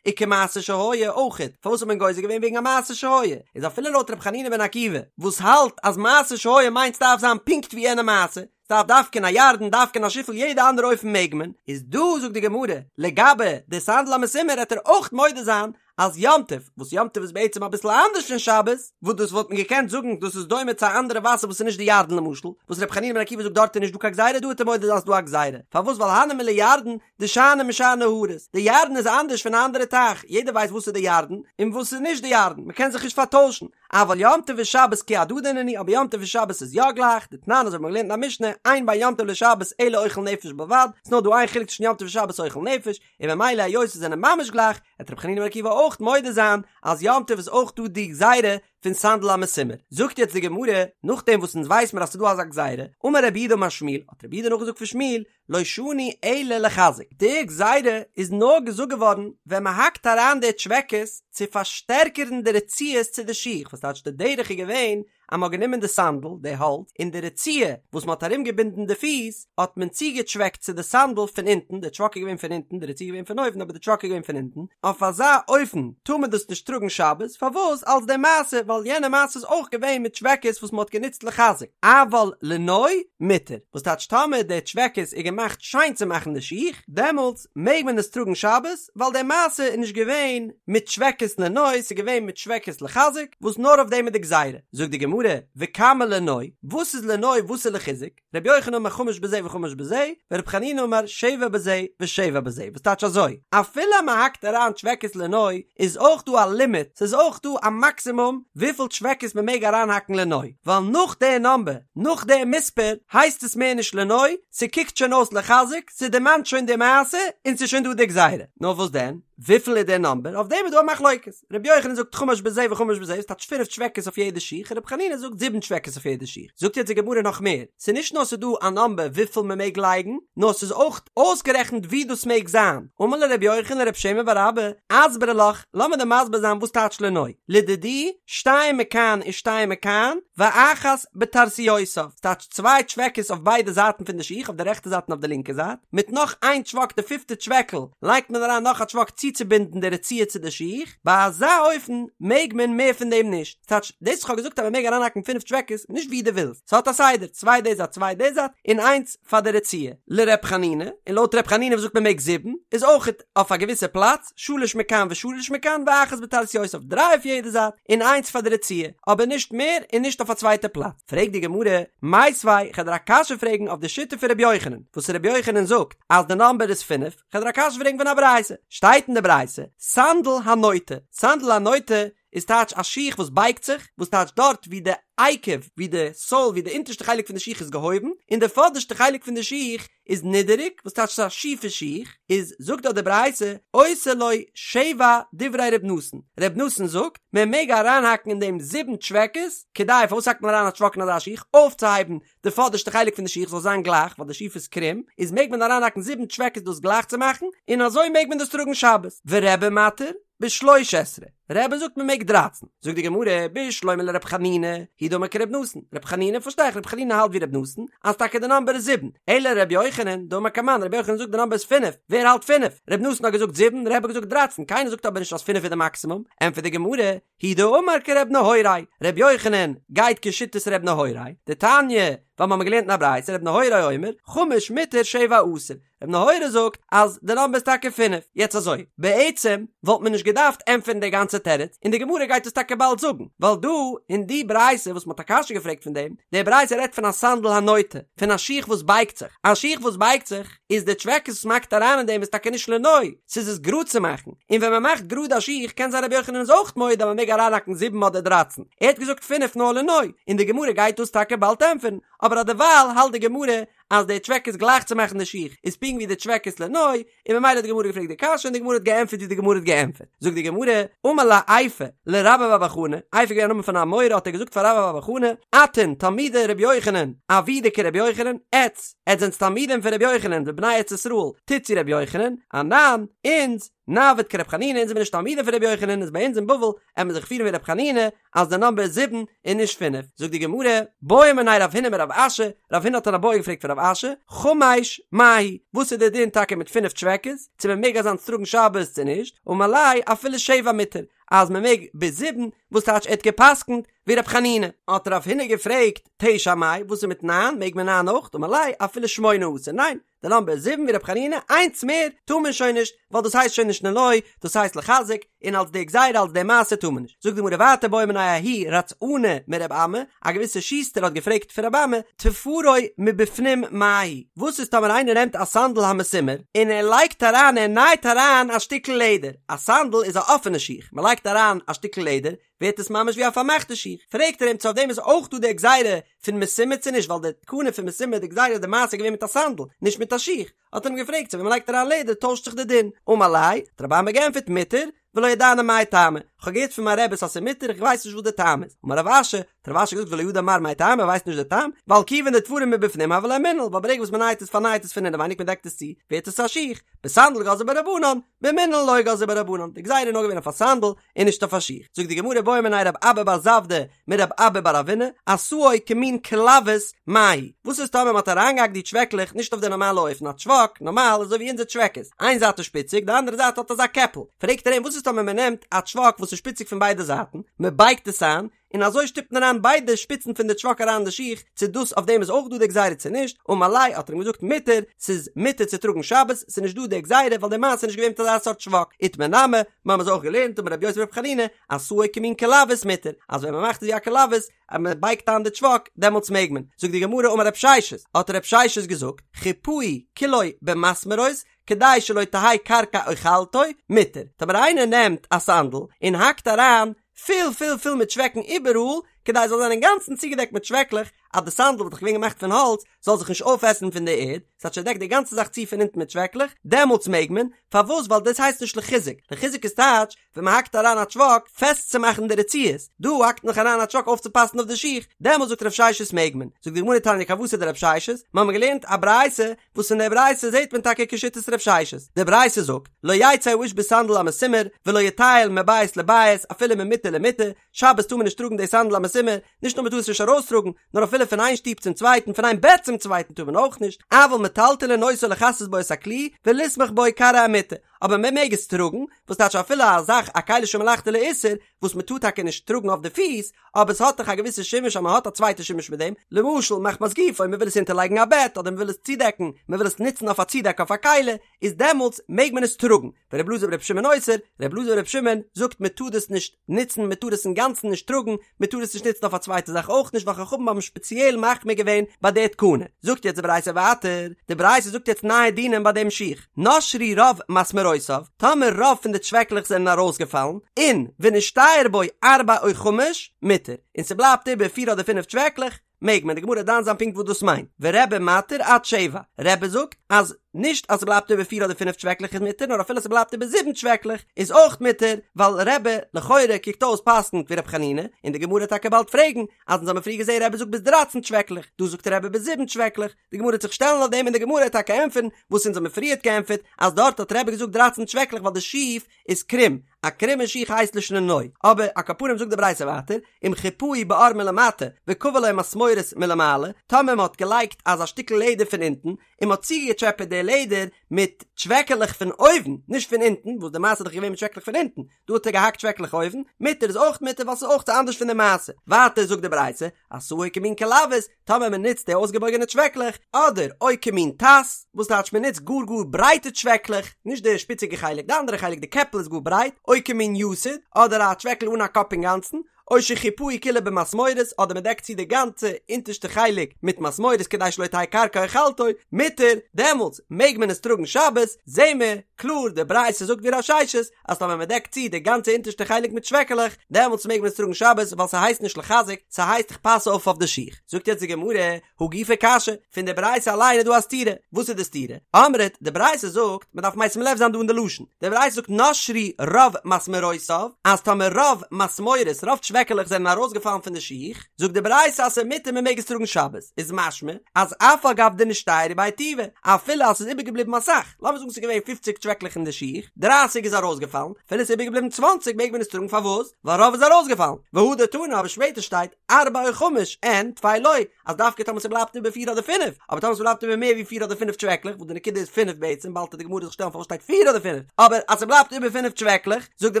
וכמעשה שהיה, אויכעט, פארוואס האט מען גוזר געווען וועגן א מעשה שהיה, איז אפילו לויט רבי חנינא בן עקיבא, וואס האלט אז מעשה שהיה מיינט ס'דארף זיין פונקט ווי יענע מעשה, ס'דארף דווקא אין א ירדן, דווקא אין א שיפל, יעדע אנדערע אופן מעג מען, איז דא זאגט די גמרא, לגבי די סנדל המסומר העט ער אויך מודה זיין אז יום טוב, וואס יום טוב איז בעצם אביסל אנדערש פון שבת, וואס דאס וואלט מען געקענט זאגן דאס איז דומה צו א אנדערע וואסער וואס איז נישט די ירדן למשל, וואס רבי חנינא בן עקיבא זאגט דארט איז נישט דא קיין גזירה דא העט ער מודה זיין ס'דא א גזירה, פארוואס ווייל הני מילי ירדן דשאני משאר נהרות, די ירדן איז אנדערש פון א אנדערע טייך, יעדער ווייסט וואס איז די ירדן און וואס איז נישט די ירדן, מען קען זיך נישט פארטוישן, אבל יום טוב ושבת כי הדדי נינהו, אבער יום טוב און שבת איז יא גלייך, דתנן אזוי ווי מ'האט געלערנט אין א משנה, אין בין יום טוב לשבת אלא אוכל נפש בלבד, ס'נאר דא איין חילוק צווישן יום טוב און שבת אוכל נפש, און ממילא היות זיי זענען ממש גלייך, וועט רבי חנינא בן עקיבא אויך מודה זיין אז יום טוב איז אויך דא די גזירה פון סנדל המסומר. זאגט יעצט די גמרא, נאכדעם וואס אונז ווייס מיר אז ס'איז דא אזא גזירה, אמר רב יהודה אמר שמואל, האט רב יהודה נאכגעזאגט פון שמואל, לא שנו אלא לחיזוק, די גזירה איז נאר געזאגט געווארן ווען מען האקט אריין די טשוועקעס צו פארשטערקערן די רצועות צו די שיך, וואס טייטש די דרך איז געווען אז מען האט גענומען די סאנדל, די האלץ, און די רצועה וואס מען האט ארום געבינדן די פיס, האט מען צוגעטשוועקט צו די סאנדל פון אונטן, די טשוואק איז געווען פון אונטן, די רצועה איז געווען פון אויבן אבער די טשוואק איז געווען פון אונטן, אויף אזא אופן טאר מען דאס נישט טראגן שבת, פארוואס אלס די מעשה, ווייל יענע מעשה איז אויך געווען מיט טשוועקעס וואס מען האט גענוצט לחיזוק, אבל לנוי מותר, וואס טייטש טאמער די טשוועקעס איז געמאכט שיין צו מאכן די שיך, דעמאלטס מעג מען עס טראגן שבת, ווייל די מעשה איז נישט געווען מיט טשוועקעס לנוי, ס'איז געווען מיט טשוועקעס לחיזוק, וואס נאר אויף דעם איז די גזירה. זאגט די גמרא, וכמה לנוי, וואס איז לנוי וואס איז לחיזוק? רבי יוחנן אמר חמש בזה וחמש בזה, ורבי חנינא אמר שבע בזה ושבע בזה, וואס טייטש אזוי, אפילו אז מען האקט אריין טשוועקעס לנוי, איז אויך דא א לימיט, ס'איז אויך דא א מאקסימום וויפיל טשוועקעס מען מעג אריינהאקן לנוי, ווייל נאך די נאמבער, נאך די מספר, הייסט עס מער נישט לנוי, ס'קוקט שוין אויס לחיזוק, ס'דערמאנט שוין די מעשה, און ס'איז שוין דא די גזירה. נאר וואס דען? וויפיל איז דער נאמבער? אויף דעם איז דא א מחלוקת. רבי יוחנן זאגט חמש בזה וחמש בזה, ס'טייטש פינף טשוועקעס אויף יעדע שיך, רבי חנינא זאגט זיבן טשוועקעס אויף יעדע שיך. זאגט יעצט די גמרא נאך מער, ס'איז נישט נאר ס'איז דא א נאמבער וויפיל מ'מעג לייגן, נאר ס'איז אויך אויסגערעכנט ווי דאס מעג זיין. אמר ליה רבי יוחנן לרב שמן בר אבא, אסברא לך, לאמיר דיר מסביר זיין וואס טייטש לנוי. לדידי, שתיים מכאן ושתיים מכאן, ואחת בטרסיותיו, ס'טייטש צוויי טשוועקעס אויף ביידע זייטן פון די שיך, אויף די רעכטע זייט און אויף די לינקע זייט, מיט נאך איין טשוואק די פיפטע טשוועקל לייגט מען אריין נאך א טשוואק צוצובינדן די רצועה צו די שיך, ביי אזא אופן מעג מען מער פון דעם נישט, ס'טייטש דאס וואס כ'האב געזאגט אז מ'מעג אריינהאקן פינף טשוועקעס, נישט ווי דו ווילסט, ס'האט א סדר, צוויי די זייט צוויי די זייט, און איינס פאר די רצועה. לר' חנינא, און לויט ר' חנינא וואס זאגט מ'מעג זיבן, איז אויכעט אויף א געוויסע פלאץ, שלש מכאן ושלש מכאן ואחת בטרסיותיו, דריי אויף יעדע זייט, און איינס פאר די רצועה, אבער נישט מער און נישט אויף א צווייטע פלאץ. פרעגט די גמרא, מיתיבי, כ'על דיר א קשיא פרעגן אויף די שיטה פון ר' יוחנן, וואס ר' יוחנן זאגט אז די נאמבער איז פינף, כ'על דיר א קשיא פרעגן פון א ברייתא, שטייט אין די ברייתא, סנדל הנוטה, סנדל הנוטה איז טייטש א שיך וואס בייגט זיך, וואס טייטש דארט ווי די. עקב ווי די סאול ווי די אונטערשטע חלק פון די שיך איז געהויבן און די פאדערשטע חלק פון די שיך איז נידעריג וואס טייטש ס'איז א שיפע שיך איז זאגט דארט די ברייתא עושה לו שבע דברי ר' נתן ר' נתן זאגט מען מעג אריינהאקן אין דעם זיבן טשוועקעס כדי פארוואס האקט מען אריין א טשוואק אין אזא שיך אויפצוהייבן די פאדערשטע חלק פון די שיך זאל זיין גלייך ווייל די שיף איז קרום איז מעג מען אריינהאקן זיבן טשוועקעס דאס גלייך צו מאכן און אזוי מעג מען דאס טראגן שבת ורבי מתיר בשלוש עשרה, רבי זאגט מען מעג דרייצן, זאגט די גמרא, בשלמא לר' חנינא, הוא דאמר כר' נתן, ר' חנינא פארשטיי איך ר' חנינא האלט ווי ר' נתן, אז טאקע די נאמבער איז זיבן, אלא ר' יוחנן, דאמר כמאן, ר' יוחנן זאגט די נאמבער איז פינף, ווער האלט פינף? ר' נתן האט געזאגט זיבן, רבי האט געזאגט דרייצן, קיינער זאגט אבער נישט אז פינף איז די מאקסימום, ענטפערט די גמרא, הוא דאמר כר' נהוראי, ר' יוחנן גייט כשיטת ר' נהוראי, דתניא, ווייל מ'האמיר געלערנט אין א ברייתא ר' נהוראי אומר, חמש מותר שבע אסור, ר' נהוראי זאגט אז די נאמבער איז טאקע פינף. יעצט אזוי, בעצם וואלט מען נישט געדארפט ענטפערן די גאנצע תירוץ, און די גמרא גייט עס טאקע באלד זאגן, ווייל דא אין די ברייתא וואס מ'האט א קשיא געפרעגט פון דעם, די ברייתא רעדט פון א סנדל הנוטה, פון א שיך וואס בייגט זיך, א שיך וואס בייגט זיך, איז די טשוועקעס וואס מ'האקט אריין אין דעם איז טאקע נישט לנוי, ס'איז עס גראד צו מאכן, און ווען מ'מאכט גראד א שיך קען זיין רבי יוחנן איז אויך מודה אז מ'מעג אריינהאקן זיבן אדער דרייצן, ער האט געזאגט פינף נאר לנוי, און די גמרא גייט דאס טאקע באלד ענטפערן, אבער אדערווייל האלט די גמרא אז די טשוועקעס גלייך צו מאכן די שיך איז פונקט ווי די טשוועקעס לנוי, און ממילא האט די גמרא געפרעגט די קשיא און די גמרא האט געענטפערט ווי די גמרא האט געענטפערט. זאגט די גמרא, אמר ליה איפה לרבה בר בר חנה, איפה איז געווען א נאמען פון א אמורא האט ער געזאגט פאר רבה בר בר חנה, אתון תלמידי רבי יוחנן, עבידו כרבי יוחנן, עטץ, עטץ זענטס תלמידים פון רבי יוחנן ובני ארץ ישראל, טוטס ווי רבי יוחנן, אנן, אונז, נעביד כרבי חנינא, אונז זעמיר נישט תלמידים פון רבי יוחנן, איז ביי אונז אין בבל, עמיר זיך פירן ווי רבי חנינא, אז די נאמבער איז זיבן און נישט פינף, זאגט די גמרא, בעא מיניה רב הונא מרב אשי, רב הונא האט אן איבעיא געפרעגט פון רב אשי, חמש מהו, וואס איז די דין טאקע מיט פינף טשוועקעס, צו מען מעג אזאנס טראגן שבת צו נישט, אמר ליה אפילו שבע מותר, אז מען מעג ביז זיבן, וואס טייטש ער האט גע'פסק'נט ווי רב חנינא. האט רב הונא געפרעגט, תשע מאי, וואס איז מיט ניין, מעג מען ניין אויך, אמר ליה אפילו שמונה אסור, ניין, די נאמבער איז זיבן ווי רב חנינא, איינס מער טאר מען שוין נישט, ווייל דאס הייסט שוין נישט לנוי, דאס הייסט לחזק, און אלס די גזירה אלס די מעשה טאר מען נישט. זאגט די גמרא ווייטער בעא מיניה ההוא רצענא מרב אמי, א געוויסע שוסטער האט געפרעגט פון רב אמי, תפרו מבפנים מהו, וואס איז טאמער איינער נעמט א סנדל המסומר און ער לייגט אריין ער נייט אריין א שטיקל לעדער, א סנדל איז א אפענע שיך, מען לייגט אריין א שטיקל לעדער, ווערט עס ממש ווי א פארמאכטע שיך, פרעגט ער אים צו אויף דעם איז אויך דא די גזירה פון מסומר צו נישט, ווייל די תקנה פון מסומר די גזירה די מעשה איז געווען מיט א סנדל, נישט מיט א שיך, האט ער אים געפרעגט צו ווען מ'לייגט אריין לעדער טוישט זיך די דין, אמר ליה, האט רב אמי געענטפערט מותר, ולא ידענא מאי טעמא, כ'האב געהערט פון מיין רעבעס אז ס'איז מותר איך ווייס נישט וואס די טעם איז, אמר רב אשי, האט רב אשי געזאגט ולא ידע מר מאי טעמא ער ווייסט נישט די טעם, ווייל כיוון דתפרו מבפנים הוה ליה מנעל, ווייל ברגע וואס מ'נייט עס פארנייט עס פון אינעווייניג מ'דעקט עס צו, ווערט עס א שיך, בסנדל גזרו ביה רבנן, במנעל לא גזרו ביה רבנן, די גזירה איז נאר געווען אויף א סנדל און נישט אויף א שיך. זאגט די גמרא בעא מיניה רב אבא בר זבדא מרב אבא בר אבינא, עשאו כמין כלבוס מהו, וואס איז טאמער מ'האט אריינגעהאקט די טשוועקלעך נישט אויף די נארמאלע אופן, א טשוואק, נארמאל אזוי ווי אונזער טשוועקעס, איין זייט איז שפיציג די אנדערע זייט האט אזא קעפל, פרעגט ער אים וואס איז טאמער מ'נעמט א טשוואק וואס איז שפיציג פון ביידע זייטן, מ'בייגט עס איין, און אזוי שטופט מען אריין ביידע שפיצן פון די טשוואק אריין אין די שיך, צו דאס אויף דעם איז אויך דא די גזירה צו נישט, אמר ליה האט ער אים געזאגט מותר, ס'איז מותר צו טראגן שבת, ס'איז נישט דא די גזירה ווייל די מעשה איז נישט געווען מיט אזא סארט טשוואק, איתמר נמי, מיר האבן עס אויך געלערנט אמר רבי יוסי ברבי חנינא, עשאו כמין כלבוס מותר, אז ווען מען מאכט עס ווי א כלבוס, אז מען בייגט איין די טשוואק, דעמאלטס מעג מען. זאגט די גמרא אמר רב ששת, האט רב ששת געזאגט, חיפהו כולו במסמרות, כדי שלא תהא קרקע אוכלתו, מותר. טאמער איינער נעמט א סאנדל און האקט אריין פול פול פול מיט טשוועקן איבעראל, כדי עס זאל זיין אינגאנצן צוגעדעקט מיט טשוועקלעך, אז די סאנדל וואס איז דאך געווען געמאכט פון האלץ, זאל זיך נישט אויפעסן פון די ערד, ס'הייסט ער דעקט די גאנצע זאך צו פון אונטן מיט טשוועקלעך, דעמאלטס מעג מען, פארוואס? ווייל דאס הייסט נישט לחיזוק, לחיזוק איז טייטש, ווען מען האקט אריין א טשוואק פעסט צו מאכן די רצועות, דא האקט מען דאך אריין א טשוואק אויפצופאסן אויף די שיך, דעמאלטס זאגט רב ששת מעג מען, זאגט די גמרא תניא כוותיה דרב ששת, מיר האבן געלערנט א ברייתא וואס אין דער ברייתא זעט מען טאקע כשיטת רב ששת, די ברייתא זאגט, לא יצא האיש בסנדל המסומר, ולא יטייל מבית לבית אפילו ממיטה למיטה, שבת טאר מען נישט טראגן די סנדל המסומר, נישט נאר מען טאר עס נישט ארויסטראגן, נאר אפילו פון איין שטוב צום צווייטן, פון איין בעט צום צווייטן טאר מען אויך נישט, אבל מטלטלין אותו לכסות בו את הכלי, ולסמוך בו כרעי המיטה, אבער מען מעג עס טראגן, וואס טייטש אפילו א זאך א כלי שמלאכתו לאיסור, וואס מען טאר טאקע נישט טראגן אויף די פיס, אבער עס האט דאך א געוויסע שימוש אז מען האט א צווייטע שימוש מיט דעם, למשל מחמת גופו, מען וויל עס אונטערלייגן א בעט, אדער מען וויל עס צודעקן, מען וויל עס נוצן אויף א צודעק אויף א כלי, איז דעמאלטס מעג מען עס טראגן, ור' אלעזר בר' שמעון אוסר, ר' אלעזר בר' שמעון זאגט מען טאר דאס נישט נוצן, מען טאר עס אינגאנצן נישט טראגן, מען טאר עס נישט נוצן אויף א צווייטע זאך אויך נישט ווייל חכמים האבן שפעציעל מחמיר געווען ביי די תקנה. זאגט יעצט די ברייתא ווייטער, די ברייתא זאגט יעצט נייע דינים ביי דעם שיך, נשרו רוב מסמרותיו. מסמרותיו, טאמער רוב פון די טשוועקלעך זענען ארויסגעפאלן, און ונשתייר בו ארבע או חמש, מותר, און ס'בלייבט איבער פיר אדער פינף טשוועקלעך, מעג מען, די גמרא דן זיין פונקט וואס דאס מיינט, ורבי מתיר עד שבע, רבי זאגט אז נישט אז ס'בלייבט איבער פיר אדער פינף טשוועקלעך איז מותר, נאר אפילו ס'בלייבט איבער זיבן טשוועקלעך איז אויך מותר, ווייל רבי לכאורה קוקט אויס פסק'נט ווי ר' חנינא, און די גמרא וועט טאקע באלד פרעגן, אז אונז האבן פריער געזען רבי זאגט ביז דרייצן טשוועקלעך, דא זאגט רבי ביז זיבן טשוועקלעך, די גמרא וועט זיך שטעלן אויף דעם און די גמרא וועט טאקע ענטפערן וואס אונז האבן פריערט געענטפערט אז דארט האט רבי געזאגט דרייצן טשוועקלעך ווייל די שיף איז קרום, א קרומע שיך הייסט לישנא נוי, אבער על כל פנים זאגט די ברייתא ווייטער, אם חיפהו בעור מלמטה וכבה לו מסמורות מלמעלה, טאמער מען האט געלייגט אזא שטיקל לעדער פון אונטן, און מען האט צוגעטשעפעט די לעדער מיט טשוועקעלעך פון אויבן, נישט פון אונטן, וואס די מעשה איז דאך געווען מיט טשוועקלעך פון אונטן, דא האט ער געהאקט טשוועקלעך אויבן, מותר איז אויך מותר ווייל ס'איז אויך אנדערש פון די מעשה. ווייטער זאגט די ברייתא, עשאו כמין כלבית, טאמער מען נוצט די אויסגעבויגענע טשוועקלעך, אדער או כמין טס, וואס טייטש מען נוצט גאר גאר ברייטע טשוועקלעך, נישט די שפיציגע חלק, די אנדערע חלק, די קעפל איז גאר ברייט, או כמין יתד, אדער א טשוועקל אן א קאפ אינגאנצן, או שחיפהו כולו במסמורות, אדער מען דעקט צו די גאנצע אונטערשטע חלק מיט מסמורות כדי שלא תהא קרקע אוכלתו, מותר, דעמאלטס מעג מען עס טראגן שבת, זעהן מיר קלאר די ברייתא זאגט ווי רב ששת, אז טאמער מען דעקט צו די גאנצע אונטערשטע חלק מיט טשוועקעלעך, דעמאלטס מעג מען עס טראגן שבת ווייל ס'הייסט נישט לחזק, ס'הייסט איך פאס אויף אויף די שיך. זאגט יעצט די גמרא, הא גופא קשיא, פון די ברייתא אליין איז דא א סתירה, וואס איז די סתירה? אמרת, די ברייתא זאגט, מען דארף משים לב זיין דא אין די לשון, די ברייתא זאגט נשרו רוב מסמרותיו, אז טאמער רוב מסמורות, רוב טשוועקעלעך זענען ארויסגעפאלן פון די שיך, זאגט די ברייתא אז ס'איז מותר מען מעג עס טראגן שבת, איז משמע אז אף על גב דנשתיירו ביה טובא, אפילו אז ס'איז איבערגעבליבן אסאך, לאמיר זאגן ס'איז געווען פופציג טשוועקלעך אין די שיך, דרייסיג איז ארויסגעפאלן, אפילו ס'איז איבערגעבליבן צוואנציג מעג מען עס טראגן פארוואס? ווייל רוב איז ארויסגעפאלן, והדר תנא אבער שפעטער שטייט ארבע או חמש אין טפי לא, אז דווקא טאמער ס'בלייבט איבער פיר אדער פינף, אבער טאמער ס'בלייבט איבער מער ווי פיר אדער פינף טשוועקלעך, וואס די נקודה איז פינף בעצם, באלד וועט די גמרא זיך שטעלן פארוואס שטייט פיר אדער פינף, אבער אז ס'בלייבט איבער פינף טשוועקלעך, זאגט די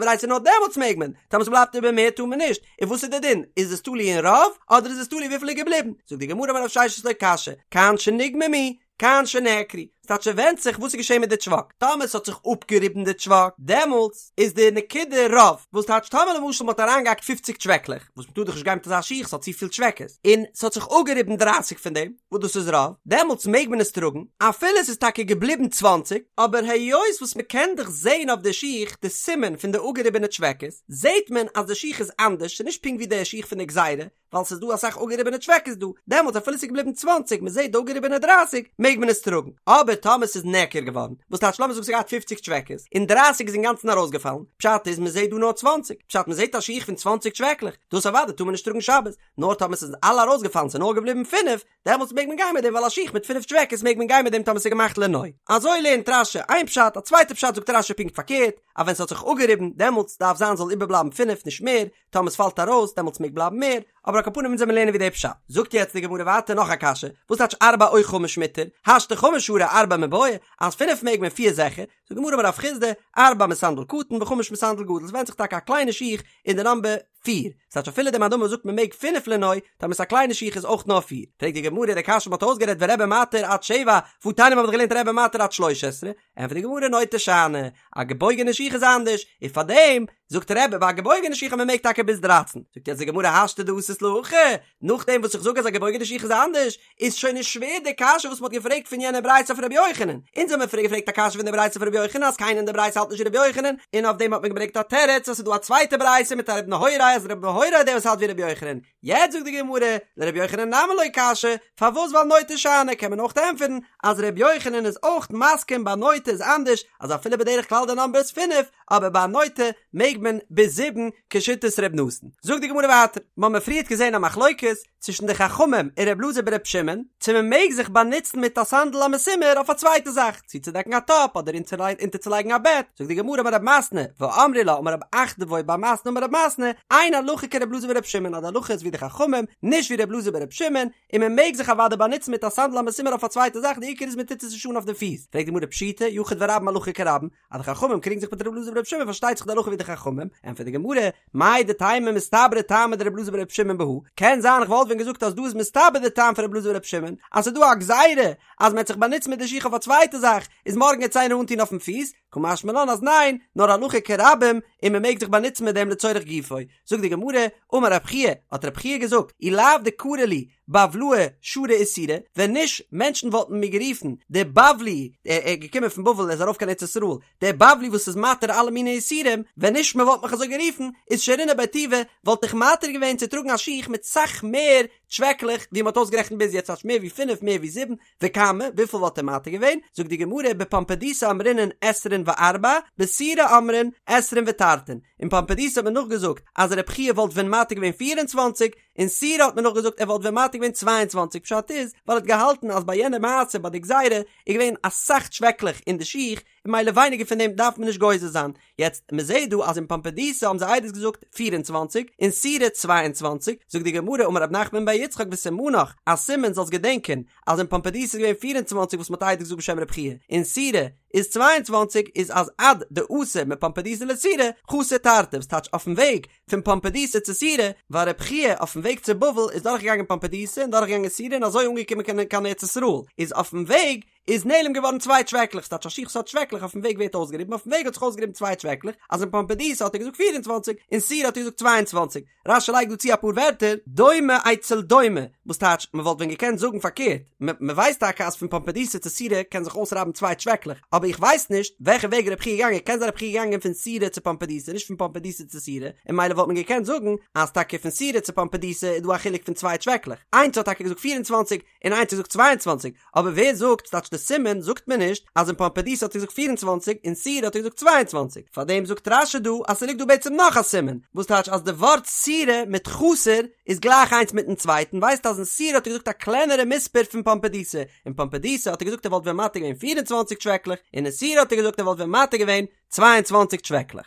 ברייתא נאר דעמאלטס מעג מען, טאמער ס'בלייבט איבער מער טאר מען נישט, און וואס איז די דין, איז עס תלוי אין רוב, אדער איז עס תלוי וויפיל איז געבליבן, זאגט די גמרא אמר רב ששת לא קשיא, כאן שנגממו, כאן שנעקרו, ס'טייטש ס'ווענדט זיך וואס איז געשען מיט די טשוואק, טאמער ס'האט זיך אפגעריבן די טשוואק, דעמאלטס איז די נקודה רוב, וואס טייטש טאמער למשל מ'האט אריינגעהאקט פופציג טשוועקלעך, וואס מ'טאר דאך נישט גיין מיט אזא שיך ס'האט צופיל טשוועקעס, און ס'האט זיך אפגעריבן דרייסיג פון דעם, וואס דאס איז רוב, דעמאלטס מעג מען עס טראגן, אפילו ס'איז טאקע געבליבן צוואנציג, אבער היות וואס מ'קען דאך זען אויף די שיך די סימן פון די אפגעריבענע טשוועקעס, זעט מען אז די שיך איז אנדערש, ס'איז נישט פונקט ווי די שיך פון די גזירה, ווייל ס'איז דא אסאך אפגעריבענע טשוועקעס דא, דעמאלטס אפילו ס'איז געבליבן צוואנציג, מ'זעט די אפגעריבענע דרייסיג, מעג מען עס טראגן. אבער טאמער ס'איז נעקר געווארן, וואס טייטש לאמיר זאגן ס'האט געהאט פופציג טשוועקעס, און דרייסיג איז אינגאנצן ארויסגעפאלן, פשט איז מ'זעט דא נאר צוואנציג, פשט מ'זעט א שיך פון צוואנציג טשוועקלעך, דאס אוודאי טאר מען נישט טראגן שבת, נאר טאמער ס'איז אלע ארויסגעפאלן ס'איז נאר געבליבן פינף, דעמאלטס מעג מען גיין מיט דעם ווייל א שיך מיט פינף טשוועקעס מעג מען גיין מיט דעם טאמער ס'איז געמאכט לנוי. אזוי לערנט רש"י איין פשט, א צווייטע פשט זאגט רש"י פונקט פארקערט, אז ווען ס'האט זיך אפגעריבן, דעמאלטס דארף זיין זאל איבערבלייבן פינף נישט מער, טאמער ס'פאלט ארויס דעמאלטס מעג בלייבן מער, אבער על כל פנים אונז וועלן לערנען ווי די פשט. זאגט יעצט די גמרא ווייטער נאך א קשיא, וואס טייטש ארבע או חמש מותר, השתא חמש שרי ארבע מיבעיא, אז פינף מעג מען פיר זיכער, זאגט די גמרא אמר רב חסדא, ארבע מסנדל קטן וחמש מסנדל גדול, ס'ווענדט זיך טאקע א קליינע שיך אין די נאמבער פיר, ס'טייטש אפילו די מאן דאמר זאגט מען מעג פינף לנוי, טאמער ס'איז א קליינע שיך איז אויך נאר פיר, פרעגט די גמרא די קשיא מ'האט אויסגערעדט ורבי מתיר עד שבע, והתניא מ'האט דאך געלערנט רבי מתיר עד שלש עשרה, ענטפערט די גמרא נוטה שאני, א געבויגענע שיך איז אנדערש, און פארדעם זאגט רבי ביי א געבויגענע שיך אז מען מעג טאקע ביז דרייצן, זאגט יעצט די גמרא השתא דאתית להכי, נאכדעם וואס איך זאג אז א געבויגענע שיך איז אנדערש, איז שוין נישט שווער די קשיא וואס מען האט געפרעגט פון יענע ברייתא אויף רבי יוחנן, אונז האבן פריער געפרעגט א קשיא פון די ברייתא אויף רבי יוחנן אז קיינער אין די ברייתא האלט נישט ווי רבי יוחנן, און אויף דעם האט מען געברענגט א תירוץ אז ס'איז דא א צווייטע ברייתא מיט א רבי נהוראי אז רבי נהוראי איז דער וואס האלט ווי רבי יוחנן, יעצט זאגט די גמרא, לרבי יוחנן נמי לא קשיא, פארוואס ווייל נוטה שאני קען מען אויך ענטפערן אז רבי יוחנן איז אויך מסכים ביי נוטה איז אנדערש אז אפילו בדרך כלל די נאמבער איז פינף אבער ביי נוטה מעג מען ביז זיבן כשיטת ר' נתן. זאגט די גמרא ווייטער, מ'האמיר פריערט געזען א מחלוקת צווישן די חכמים און ר' אלעזר בר' שמעון צו מ'מעג זיך באנוצן מיט א סנדל המסומר אויף א צווייטע זאך, צו צודעקן א טאפ אדער אונטערצולייגן א בעט, זאגט די גמרא אמר רב מתנה, ואמרי לה אמר רב אחדבוי בר מתנה אמר רב מתנה, אין הלכה כר' אלעזר בר' שמעון אז די הלכה איז ווי די חכמים, נישט ווי ר' אלעזר בר' שמעון, און מען מעג זיך אוודאי באנוצן מיט א סנדל המסומר אויף א צווייטע זאך די עיקר איז מען טוט עס נישט אן אויף די פיס, פרעגט די גמרא פשיטא, יחיד ורבים הלכה כרבים, אז די חכמים קריגן זיך מיט ר' אלעזר בר' שמעון פארשטייט זיך די הלכה ווי די חכמים, ענטפערט די גמרא, מהו דתימא מסתברא טעמא דר' אלעזר בר' שמעון בהא, קען זיין איך וואלט ווען געזאגט אז דא איז מסתבר די טעם פון ר' אלעזר בר' שמעון, אז ס'איז דא א גזירה אז מ'העט זיך באנוצן מיט די שיך אויף א צווייטע זאך, איז מארגן העט עס איינער אנטון אויפן פיס, קא משמע לן אז ניין, נאר הלכה כרבים, און מ'מעג זיך באנוצן מיט דעם לצורך גופו. זאגט די גמרא, אמר רב חייא, האט רב חייא געזאגט, אי לאו דקרי לי, בבלאי שרי איסורא, ווען נישט מענטשן וואלטן מיר גערופן דער בבלי, ער איז געקומען פון בבל ער איז ארויף קיין ארץ ישראל, דער בבלי וואס איז מתיר אלע מיני איסורים, ווען נישט מען וואלט מיך אזוי גערופן, איז שרינא ביה טובא, וואלט איך מתיר געווען צו טראגן א שיך מיט סאך מער טשוועקלעך ווי מען האט אויסגערעכנט ביז יעצט, ס'טייטש מער ווי פינף מער ווי זיבן, וכמה, וויפיל וואלט ער מתיר געווען? זאגט די גמרא, בפומבדיתא אמרינן עשרין וארבע, בסורא אמרין עשרין ותרתין, אין פומבדיתא האט מען נאכגעזאגט אז רבי חייא וואלט ווען מתיר געווען 24, אין סורא האט מען נאכגעזאגט ער וואלט ווען מתיר געווען 22, פשט איז ווייל ער האט געהאלטן אז ביי יענע מעשה ביי די גזירה איז געווען אסאך טשוועקלעך אין די שיך, און ממילא ווייניגער פון דעם דארף מען נישט גוזר זיין. יעצט, מען זעט דא אז אין פומבדיתא האבן זיי עדות געזאגט 24, אין סורא 22, זאגט די גמרא אמר רב נחמן בר יצחק וסימנך, א סימן זאלסט געדענקען אז אין פומבדיתא איז געווען 24 וואס מען האט עדות געזאגט בשם רב חייא, אין סורא איז 22 איז אז עד דאתא מפומבדיתא לסורא חסר תרתי וואס טייטש אויפן וועג פון פומבדיתא צו סורא, ווייל רב חייא אויפן וועג צו בבל איז דורכגעגאנגען פומבדיתא און דורכגעגאנגען סורא און אזוי אנגעקומען קיין ארץ ישראל, איז אויפן וועג איז נעלם געווארן צוויי טשוועקלעך, ס'טייטש א שיך וואס האט טשוועקלעך אויפן וועג ווערט אויסגעריבן, אויפן וועג האט זיך אויסגעריבן צוויי טשוועקלעך, אז אין פומבדיתא האט ער געזאגט 24, אין סורא האט ער געזאגט 22. רש"י לייגט דא צו אפאר ווערטער, דומה אצל דומה, וואס טייטש, מ'וואלט ווען געקענט זאגן פארקערט, מ'ווייסט טאקע אז פון פומבדיתא צו סורא קען זיך אויסרייבן צוויי טשוועקלעך, אבער איך ווייס נישט וועלכע וועג רב חייא איז געגאנגען, קען זיין רב חייא איז געגאנגען פון סורא צו פומבדיתא נישט פון פומבדיתא צו סורא, און ממילא וואלט מען געקענט זאגן אז טאקע פון סורא צו פומבדיתא איז דא א חילוק פון צוויי טשוועקלעך, איינס האט טאקע געזאגט 24 און איינס האט געזאגט 22, אבער ווער זאגט, ס'טייטש די סימן זאגט מען נישט אז אין פומבדיתא האט ער געזאגט 24 אין סורא האט ער געזאגט 22, פארדעם זאגט רש"י דא אז ס'ליגט דא בעצם נאך א סימן, וואס טייטש אז די ווארט סורא מיט חסר איז גלייך איינס מיטן צווייטן, ווייזט אז אין סורא האט ער געזאגט א קלענערע מספר פון פומבדיתא, אין פומבדיתא האט ער געזאגט ער וואלט ווען מתיר געווען 24 טשוועקלעך, און אין סורא האט ער געזאגט ער וואלט ווען מתיר געווען 22 טשוועקלעך.